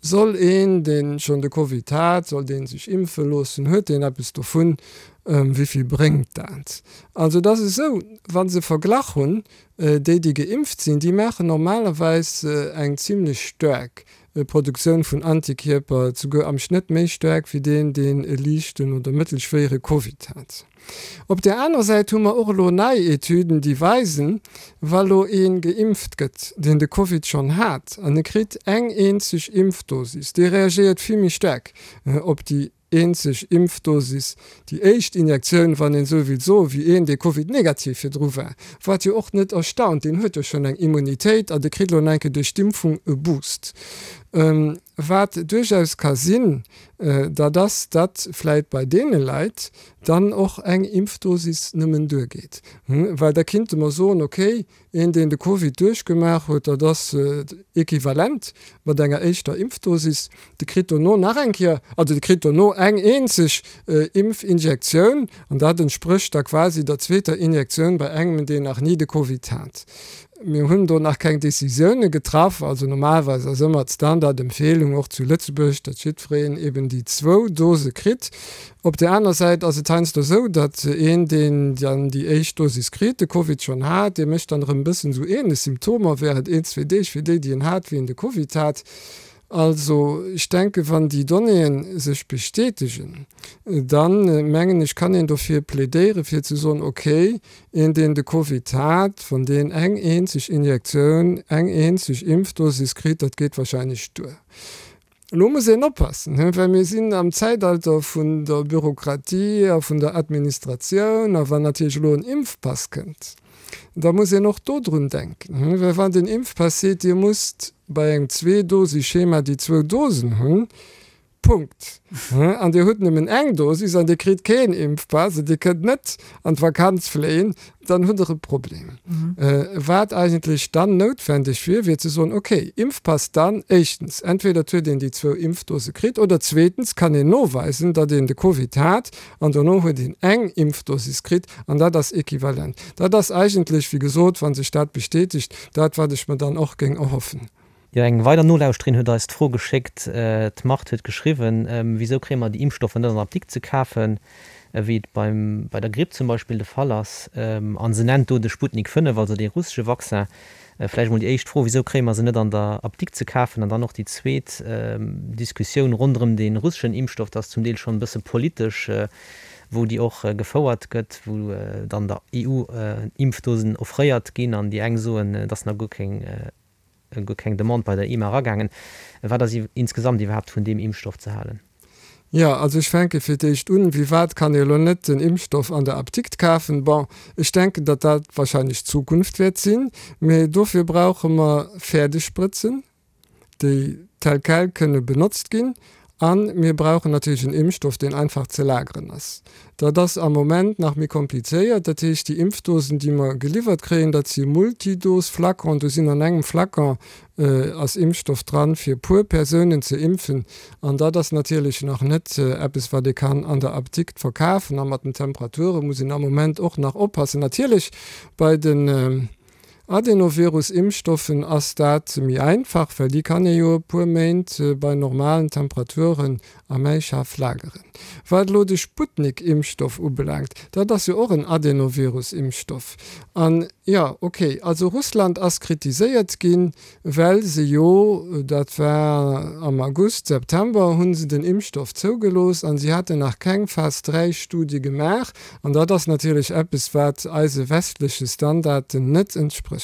Soll een, dee schonn de Covid hat, soll dee sech impfe loossen? Huet deen eppes dovun? Wéi vill bréngt dat? Also et ass esou, wa se verglach hunn, déi déi geimpft sinn, déi maachen normalerweis eng zimlech staark Produktioun vun Antikierper, souguer am Schnëtt méi staark wéi deen, deen e liichten oder mëttelschwéiere Covid hat. Op där anerer Säit hu mer och elo nei Etüden, déi weisen, wa lo ee geimpft gëtt, deen de Covid schonn hat, an e kritt eng eenzeg Impfdosis, dee reagéiert vill méi staark op déi eenzeg Impfdosis, déi éischt Injektioun, wann een esou wéilt soen, wéi een, dee Covid-negativ virdru war. Wat jo och net erstaunt, deen huet jo schonn eng Immunitéit a dee kritt elo nach eng Kéier duerch d'Impfung e Boost. Wat duerchaus ka sinn, dat ass, datt vläit bei deene Leit dann och eng Impfdosis nëmmen duergeet. Well da kinnte mer soen, okay, een, deen de Covid duerchgemaach huet, dat ass equivalent mat enger éischter Impfdosis, de kritt dono nach eng Kéier, also de kritt dono eng eenzeg Impfinjektioun an dat entsprécht da quasi der zweeter Injektioun bei engem, deen nach ni de Covid hat. Mir hunn do nach keng Décisioune getraff. Also normalerweis ass ëmmer d'Standardempfehlung, och zu Lëtzebuerg, datt jiddwereen eben déi zwou Dose kritt. Op där aner Säit ass et heiansdo esou, datt een, deen dann déi éischt Dosis kritt, de Covid schonn hat, dee mécht dann erëm e bëssen esou ähnlech Symptomer während een, zwee Deeg wéi déi, déi en hat, wéi en de Covid hat. Also, ech denken, wann déi Donnéeën sech bestätegen, dann, mengen ech, kann een dofir plädéieren, fir ze soen, okay, een, deen de Covid hat, wann deen eng eenzeg Injektioun, eng eenzeg Impfdosis kritt, dat geet wahrscheinlech duer. Elo muss een oppassen, well mir sinn am Zäitalter vun der Bürokratie a vun der Administratioun, a wann natierlech elo en Impfpass kënnt, da muss een och dodrun denken, well wann den Impfpass seet, Dir musst bei engem Zweedosischema déi zwou Dosen hunn, Punkt, an Dir hutt nëmmen eng Dosis an Dir kritt keen Impfpass an Dir kënnt net an d'Vakanz fléien, dann hutt Der e Problem. Wat eigentlech dann noutwendeg wier, wier ze soen, okay, Impfpass dann éischtens, entweder et huet een déi zwou Impfdose kritt oder zweetens kann een noweisen, datt een de Covid hat an dono huet een eng Impfdosis kritt an dat ass equivalent. Dat ass eigentlech, wéi gesot, wa sech dat bestätegt, dat wat ech mer dann och géing erhoffen. Jo, eng weider Nolauschterin huet eis d'Fro geschéckt, d'Marthe huet geschriwwen, Wisou kréie mer déi Impfstoffer net an der Apdikt ze kafen, wéi et beim, bei der Gripp zum Beispill de Fall ass? A se nennt do de Sputnik 5, also dee russesche Vaccin. Vläicht emol déi éischt Fro, Wisou kréie mer se net an der Apdikt ze kafen? An dann och déi zweet Diskussioun ronderëm dee russeschen Impfstoff, dat ass zum Deel schonn e bësse politesch, wou déi och gefouert gëtt, wou dann der EU Impfdosen offréiert ginn an déi eng soen, et ass nach guer keng guer keng Demande bei der EMA eragaangen. Wat ass insgesamt iwwerhaapt vun deem Impfstoff ze halen? Jo, also ech fänke fir d'éischt un, Wéi wat kann ee elo net den Impfstoff an der Apdikt kafen? Bon, ech denken, datt dat wahrscheinlech d'Zukunft wäert sinn, mee dofir brauche mer fäerdeg Sprëtzen, déi tel quel kënne benotzt ginn. A mir brauchen natierlech en Impfstoff, deen einfach ze lageren ass. Dat ass am Moment nach méi komplizéiert. Dat heescht, déi Impfdosen, déi mer geliwwert kréien, dat si Multidose-Flaconen. Do sinn an engem Flacon ass Impfstoff dran, fir e puer Persounen ze impfen. An dat ass natierlech nach net eppes, wat ee kann an der Apdikt verkafen. A mat den Temperature muss een am Moment och nach oppassen. Natierlech bei den. Adenovirus-Impfstoffen ass dat méi einfach, well déi kann ee jo e puer Méint bei normalen Temperaturen am Äischaf lageren. Wat elo de Sputnik-Impfstoff ubelaangt, dat ass jo och en Adenovirus-Impfstoff. An, jo, okay, also Russland ass kritiséiert ginn, well se jo, dat war am August, September, hu se den Impfstoff zougelooss an si haten nach keng Phas 3 Studie gemaach. An dat ass natierlech eppes, wat eise westleche Standarden net entsprécht.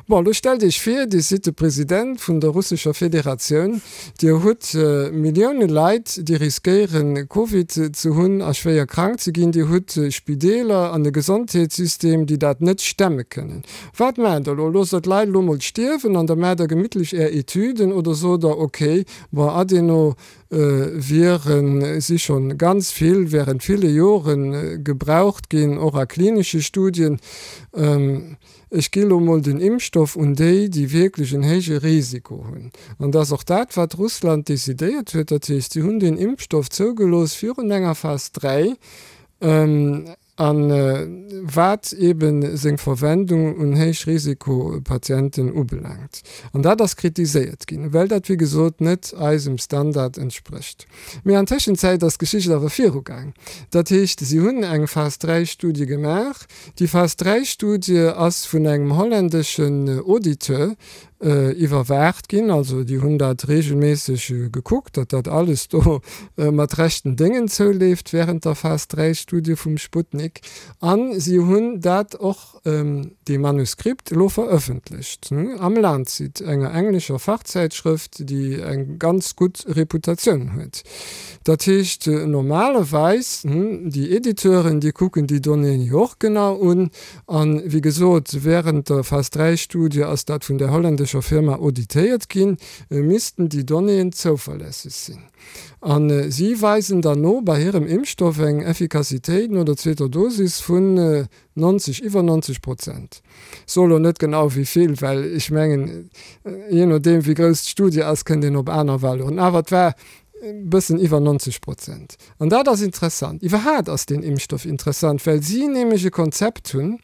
Bon, elo stellt Iech vir, Dir sidd de President vun der russescher Federatioun, Dir hutt Millioune Leit, déi riskéieren, Covid ze hunn a schwéier krank ze ginn, Dir hutt Spideeler an e Gesondheetssystem, déi dat net stemme kënnen. Wat maacht Der elo? Loosst Der d'Leit elo mol stierwen an da maacht Der gemittlech Är Etüden oder sot Der, okay, bon, Adeno Viren si schonn ganz vill während ville Jore gebraucht ginn, och a klinesche Studien. Ech gi lo mol den Impfstoff un déi, déi wierklech en héije Risiko hunn. An dat ass och dat, wat Russland decidéiert huet. Dat heescht, si hunn deen Impfstoff zougelooss virun enger Phas 3, a wat eebe seng Verwendung un Héichrisikopatienten ubelaangt. An dat ass kritiséiert ginn, well dat, wéi gesot, net eisem Standard entsprécht. Mee an Tëschenzäit ass d'Geschicht awer virugaang. Dat heescht, si hunn eng Phas 3 Studie gemaach. Déi Phas 3 Studie ass vun engem holländeschen Auditeur iwwerwaacht ginn. Also déi hunn dat reegelméisseg gekuckt, datt dat alles do mat rechten Déngen zouleeft während der Phas 3 Studie vum Sputnik. A si hunn dat och dee Manuskript elo verëffentlecht am Lancet, enger englescher Fachzäitschrëft, déi eng ganz gutt Reputatioun huet. Dat heescht, normalerweis, déi Editeuren, déi kucken déi Donnéeën jo och genau un. A wéi gesot, wärend der Phas 3 Studie ass dat vun där holländescher Firma auditéiert ginn, missten déi Donnéeën zouverlässeg sinn. A si weisen dann no bei hirem Impfstoff eng Effikassitéit no der zweeter Dosis vun 90, iwwer 90 Prozent. Soe lo net genau wéi vill, well ech mengen, jee nodeem wéi grouss d'Studie ass, kënnt een op aner Valeuren. Awer et war e bëssen iwwer 90 Prozent. An dat ass interessant. Iwwerhaat ass deen Impfstoff interessant, well si nämlech e Konzept hunn,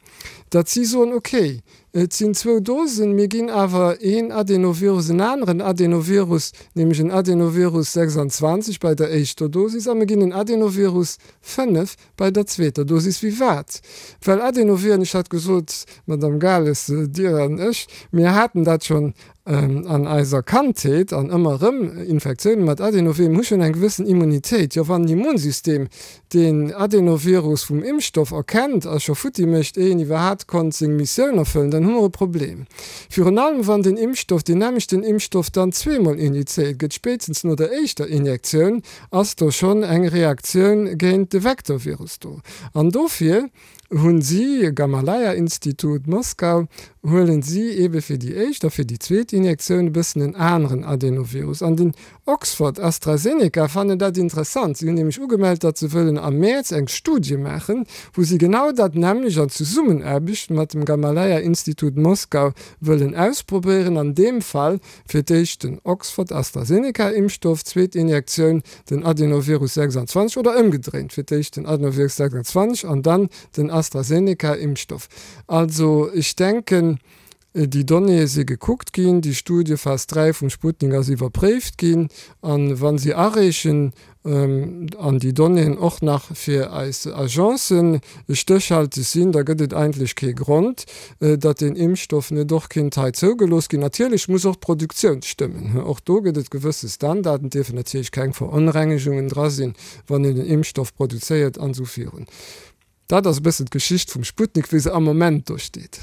datt si soen, okay, et sinn zwou Dosen, mir ginn awer een Adenovirus, en aneren Adenovirus, nämlech en Adenovirus 26 bei der éischter Dosis a mir ginn en Adenovirus 5 Bei der zweeter Dosis wéi wat? Well Adenoviren, ech hat gesot, Madame Gales, Dir an ech, mir haten dat schonn an eiser Kandheet an ëmmer erëm Infektiounen mat Adenoviren, mir hu schonn eng gewëssen Immunitéit. Jo, wann d'Immunsystem deen Adenovirus vum Impfstoff erkennt a scho futti mécht, éier en iwwerhaapt konnt seng Missioun erfëllen, dann hu mer e Problem. Virun allem wann den Impfstoff, deen nämmlechten Impfstoff dann zweemol injizéiert gëtt, spéitstens no der éischter Injektioun, ass do schonn eng Reaktioun géint de Vektorvirus do. An dofir hunn si, Gamaleya-Institut, Moskau, huelen si eebe fir déi éischt a fir déi zweet Injektioun e bëssen en aneren Adenovirus. An den Oxford-AstraZeneca fannen dat interessant. Si hunn nämlech ugemellt, datt se wëllen am Mäerz eng Studie maachen, wou si genau dat nämmlecht an Zesummenaarbecht mat dem Gamaleya-Institut, Moskau wëllen ausprobéieren. An deem Fall Fir d'éischt den Oxford-AstraZeneca-Impfstoff, zweet Injektioun den Adenovirus 26 oder ëmgedréint, fir d'éischt den Adenovirus 26 an dann den AstraZeneca-Impfstoff. Also ech denken, déi Donnéeë si gekuckt ginn, déi Studie Phas 3 vum Sputnik ass iwwerpréift ginn a wa se areechen, an déi Donnéeën och nach fir eis Agencen stéchhalteg sinn, da gëtt et eigentlech kee Grond, datt deen Impfstoff net och kinnt hei zougelooss ginn. Natierlech muss och d'Produktioun stëmmen. Och do gëtt et gewësse Standarden. Et dierfen natierlech keng Veronrengegungen dra sinn, wann een den Impfstoff produzéiert an esou virun. Dat ass e bëssen d'Geschicht vum Sputnik, wéi se am Moment do steet.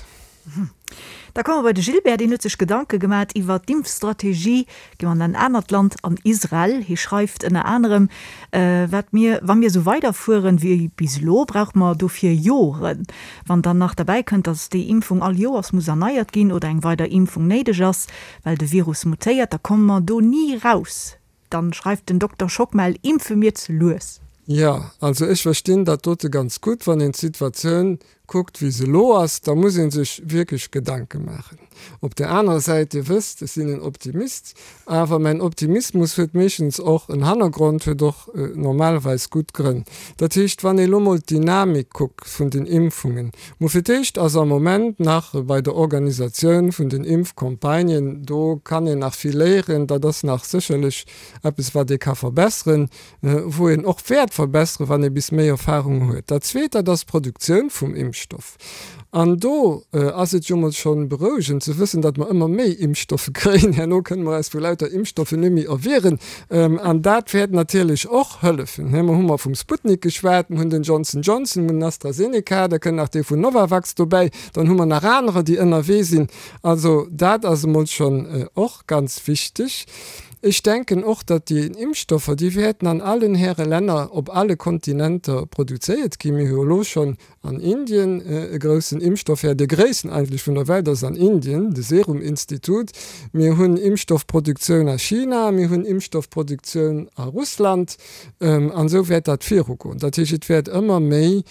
Da komme mer bei de Gilbert, deen huet sech Gedanke gemat iwwer d'Impfstrategie. Gi mer an en anert Land, an Israel. Hie schreift ënner anerem, Wat mir, wa mir esou weiderfueren wéi bis elo, brauche mer dofir Joren. Wann dann nach derbäi kënnt, datt déi Impfung all Joers muss erneiert ginn oder eng weider Impfung néideg ass, well de Virus mutéiert, da komme mer do ni raus. Dann schreift den Dokter Schockmel, Impfe mir ze lues. Jo, also ech verstinn dat dote ganz gutt, wann een d'Situatioun. kuckt, wéi se elo ass, da muss ee sech wierklech Gedanke maachen. Op där anerer Säit, Dir wësst, ech sinn en Optimist, awer mäin Optimismus huet meeschtens och en Hannergrond, huet och normalerweis gutt Grënn. Dat heescht, wann ee lo mol d'Dynamik kuckt vun den Impfungen, mo fir d'éischt ass am Moment nach bei der Organisatioun vun den Impfcampagnen, do kann een nach vill léieren, dat ass nach sécherlech eppes, wat ee ka verbesseren, wou een och wäert verbesseren, wann ee bis méi Erfahrung huet. Dat Zweet, dat ass d'Produktioun vum Impfstoff. An do ass et jo mol schonn berouegend ze wëssen, datt mer ëmmer méi Impfstoffe kréien. Herno kënne mer eis vu lauter Impfstoffen net méi erwieren. An dat wäert natierlech och hëllefen. Mer hu mer vum Sputnik geschwat, mer hunn den Johnson Johnson, mer hunn den AstraZeneca, da kënnt nach dee vun Novavax dobäi, dann hu mer nach anerer, déi ënnerwee sinn. Also dat ass emol schonn och ganz wichteg. Ech denken och, datt déi Impfstoffer, déi wäerten an allen Häre Länner op alle Kontinenter produzéiert ginn. Mir hu jo elo schonn an Indien e groussen Impfstoffhär, de gréissten eigentlech vun der Welt ass an Indien, de Serum Institut. Mir hunn Impfstoffproduktioun a China, mir hunn Impfstoffproduktioun a Russland an esou wäert dat virugoen. Dat heescht, et wäert ëmmer méi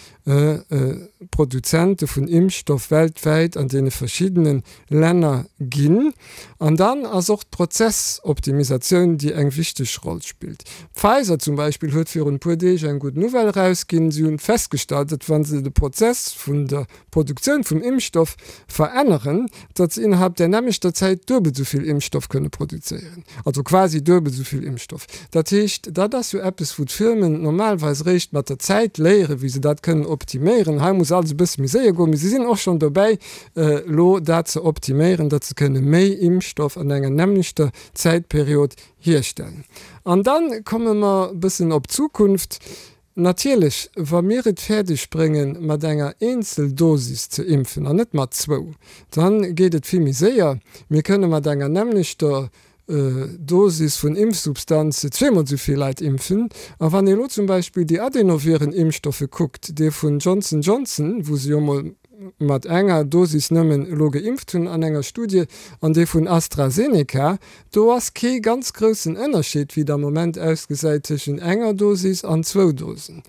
Produzente vun Impfstoff weltwäit an deene verschiddene Länner ginn. An dann ass och d'Prozessoptimisatioun, déi eng wichteg Roll spillt. Pfizer zum Beispill huet virun e puer Deeg eng gutt Nouvelle erausginn. Si hunn festgestallt, datt wa se de Prozess vun der Produktioun vum Impfstoff veränneren, datt se innerhalb där nämmlechter Zäit duebel esou vill Impfstoff kënne produzéieren. Also quasi duebel esou vill Impfstoff. Dat heescht, dat ass jo eppes, wou d'Firmen normalerweis eréischt mat der Zäit léieren, wéi se dat kënnen optiméieren. Hei muss alles e bësse méi séier goen, mee si sinn och schonn dobäi, elo dat ze optiméieren, datt se kënne méi Impfstoff an enger nämmlechter Zäitperiod hierstellen. An da komme mer e bëssen op d'Zukunft. Natierlech, wa mir et fäerdeg bréngen, mat enger Eenzeldosis ze impfen an net mat zwou, da geet et vill méi séier. Mir kënne mat enger nämmlechter Dosis vun Impfsubstanz zweemol esou vill Leit impfen. A wann ee elo zum Beispill déi Adenoviren-Impfstoffe kuckt, dee vun Johnson Johnson, wou se jo emol mat enger Dosis nëmmen elo geimpft hunn an enger Studie, an dee vun AstraZeneca, do ass kee ganz groussen Ënnerscheed, wéi et am Moment ausgesäit, tëschent enger Dosis an zwou Dosen.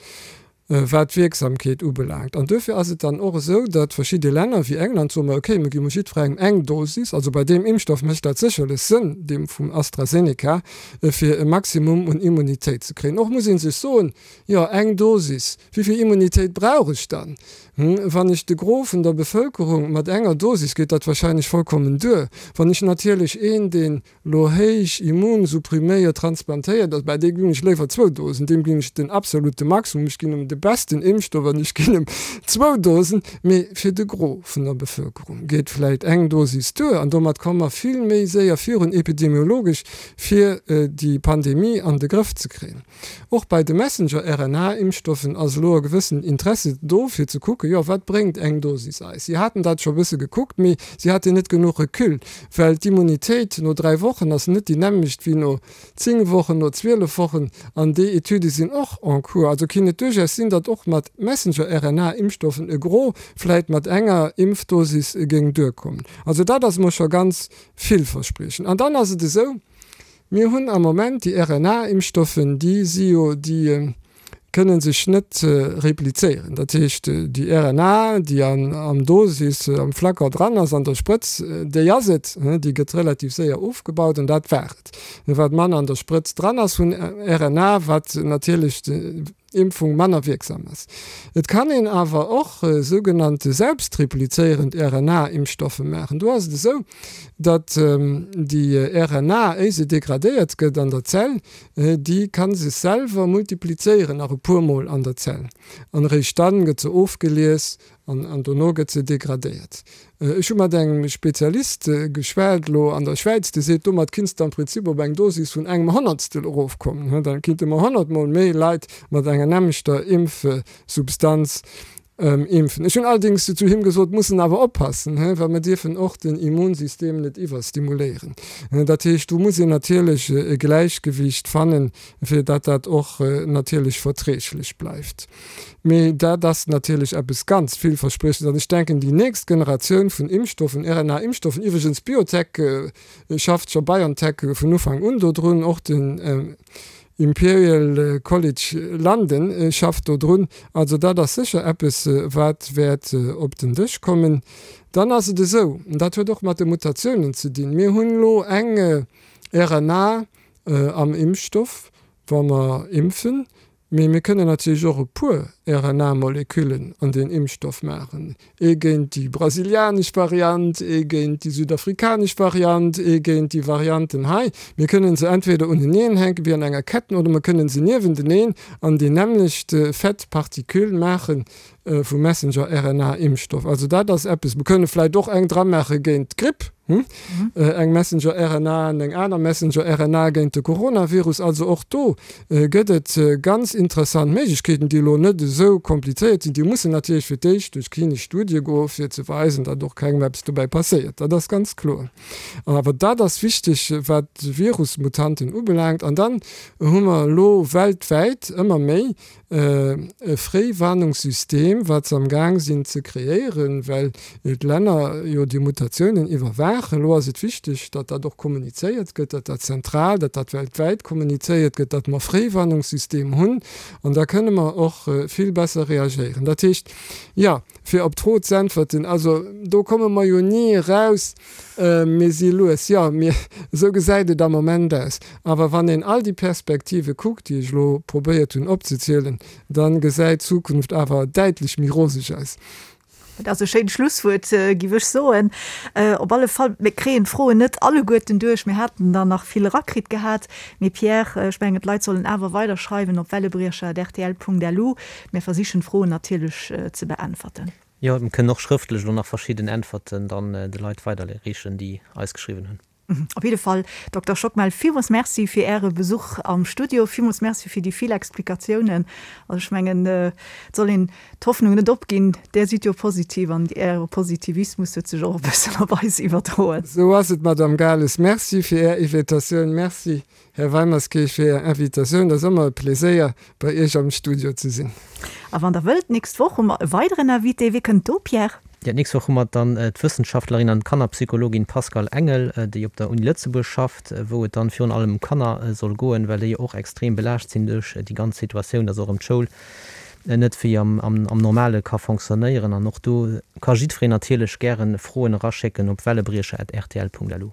Wat d'Wierksamkeet ubelaangt. An duerfir ass et dann och esou, datt verschidde Länner wéi England soen, ma okay, mir gi mol jiddwerengem eng Dosis. Also bei deem Impfstoff mécht dat sécherlech Sënn, deem vum AstraZeneca, fir e Maximum un Immunitéit ze kréien. Och muss ee sech soen, jo eng Dosis, wéi vill Immunitéit brauch ech dann? Wann ech de Gros vun der Bevëlkerung mat enger Dosis, geet dat wahrscheinlech vollkommen duer. Wann ech natierlech een, deen lo héich immunsuppriméiert transplantéiert ass, bah, deem ginn ech léiwer zwou Dosen, deem ginn ech den absolute Maximum, ech ginn em de besten Impfstoff an ech ginn em zwou Dosen. Mee fir de Gros vun der Bevëlkerung geet vläit eng Dosis duer an domat komme mer vill méi séier virun epidemiologesch, fir déi Pandemie an de Grëff ze kréien. Och bei de Messenger-RNA-Impfstoffen ass elo e gewëssen Interesse do, fir ze kucken, jo, wat bréngt eng Dosis eis? Si haten dat scho e bësse gekuckt, mee si haten net genuch Recul, well d'Immunitéit no 3 Wochen ass net déi nämmlecht wéi no 10 Wochen, no 12 Wochen. An déi Etüde sinn och en cours. Also kinnt et duerchaus sinn, datt och mat Messenger-RNA-Impfstoffen e Gros vläit mat enger Impfdosis géing duerkommen. Also dat ass emol scho ganz villverspriechend. An dann ass et esou, Mir hunn am Moment déi RNA-Impfstoffen, déi si jo, déi kënne sech net replizéieren. Dat heescht, déi RNA, déi am Dosis, am Flacon dran ass, an der Sprëtz, déi ass et, déi gëtt relativ séier ofgebaut an dat war et. Wat manner an der Sprëtz dran ass vun RNA, wat natierlech Impfung manner wierksam ass. Et kann een awer och sougenannte selbstreplizéierend RNA-Impfstoffe maachen. Do ass et esou, datt déi RNA, éi se degradéiert gëtt an der Zell, déi ka sech selwer multiplizéieren nach e puer Mol an der Zell an eréischt dann gëtt se ofgelies An dono gëtt se degradéiert. Ech hu mat engem Spezialist geschwat elo an der Schwäiz, dee seet, domat kinns de am Prinzip op eng Dosis vun engem Honnertstel erofkommen. Da kinnte mer honnertmol méi Leit mat enger nämmlechter Impfsubstanz impfen. Ech hunn allerdéngs zu him gesot, mussen awer oppassen, well mer dierfen och den Immunsystem net iwwerstimuléieren. Dat heescht, do muss een natierlech e Gläichgewicht fannen, fir datt dat och natierlech verträglech bleift. Mee dat ass natierlech eppes ganz villverspriechendes. An ech denken, déi nächst Generatioun vun Impfstoffen, RNA-Impfstoffen, iwwregens Biotech schafft scho, BioNTech vun Ufank un dodrun, och den. Imperial College London schafft do drun. Also dat ass sécher eppes, wat wäert op den Dësch kommen. Dann ass et esou, an dat huet och mat de Mutatiounen ze dinn, mir hunn elo eng RNA am Impfstoff, wa mer impfen, mee mir kënnen natierlech och e puer RNA-Moleküllen an deen Impfstoff maachen, ee géint déi brasilianesch Variant, ee géint déi südafrikanesch Variant, ee géint déi Varianten hei. Mir kënnen se entweder uneneen hänken, wéi an enger Ketten, oder mer kënnen se niewenteneen an déi nämmlecht fett Particule maachen, vu Messenger-RNA-Impfstoff. Also dat ass eppes, mer kënne vläicht och eng dramaache géint d'Gripp, eng Messenger-RNA an eng aner Messenger-RNA géint de Coronavirus. Also och do gëtt et ganz interessant Méiglechkeeten, déi elo net esou komplizéiert sinn. Déi mussen natierlech fir d'éischt duerch klinesch Studie goen, fir ze weisen, datt och kengem eppes dobäi passéiert. Dat ass ganz kloer. Awer dat ass wichteg, wat d'Virusmutanten ubelaangt. An dann hu mer elo weltwäit ëmmer méi e Fréiwarnungssystem, wat se am Gaang sinn ze kreéieren, well d'Länner jo déi Mutatiounen iwwerwaachen. Elo ass et wichteg, datt dat och kommunizéiert gëtt, datt dat zentral, datt dat weltwäit kommunizéiert gëtt, datt mer e Fréiwarnungssystem hunn. An da kënne mer och vill besser reagéieren. Dat heescht, jo, fir op d'Fro z'äntwerten, also do komme mer jo ni eraus, Mir si lues, jo, mir, esou gesäit et am Moment aus. Awer wann een all déi Perspektive kuckt, déi ech elo probéiert hunn opzezielen, da gesäit d'Zukunft awer däitlech méi roseg aus. Dat ass e schéint Schlusswuert, giff ech soen. Op alle Fall, mir kréien d'Froen net alleguerten duerch. Mir haten der nach vill erakritt gehat. Mee Pierre, ech mengen, d'Leit sollen awer weider schreiwen op wellebriecher@rtl.lu. Mir versichen d'Froen natierlech ze beäntwerten. Jo, mir kënnen och schrëftlech elo nach verschidden Äntwerten dann de Leit weiderreechen, déi eis geschriwwen hunn. Op jidde Fall, Dokter Schockmel, villmools Merci fir Äre Besuch am Studio. Villmools Merci fir déi vill Explikatiounen. Also ech mengen, et soll een d'Hoffnung net opginn. Där sidd jo positiv an Äre Positivismus huet sech och e bëssen op eis iwwerdroen. Esou ass et, Madame Gales. Merci fir Är Invitatioun. Merci Här Weimerskirch, fir Är Invitatioun. Et ass ëmmer e Pleséier, bei Iech am Studio ze sinn. A wann Der wëllt, d'nächst Woch hu mer e weideren Invité. Wie kënnt do, Pierre? Jo, d'nächst Woch hu mer dann d'Wëssenschaftlerin an Kannerpsychologin Pascale Engel, déi op der Uni Lëtzebuerg schafft, wou et dann virun allem ëm Kanner soll goen, well déi jo och extrem belaascht sinn duerch déi ganz Situatioun, dass och erëm d'Schoul net wéi am Normale ka fonctionnéieren. An och do ka jiddwereen natierlech gären Froen eraschécken op wellebriecher@rtl.lu.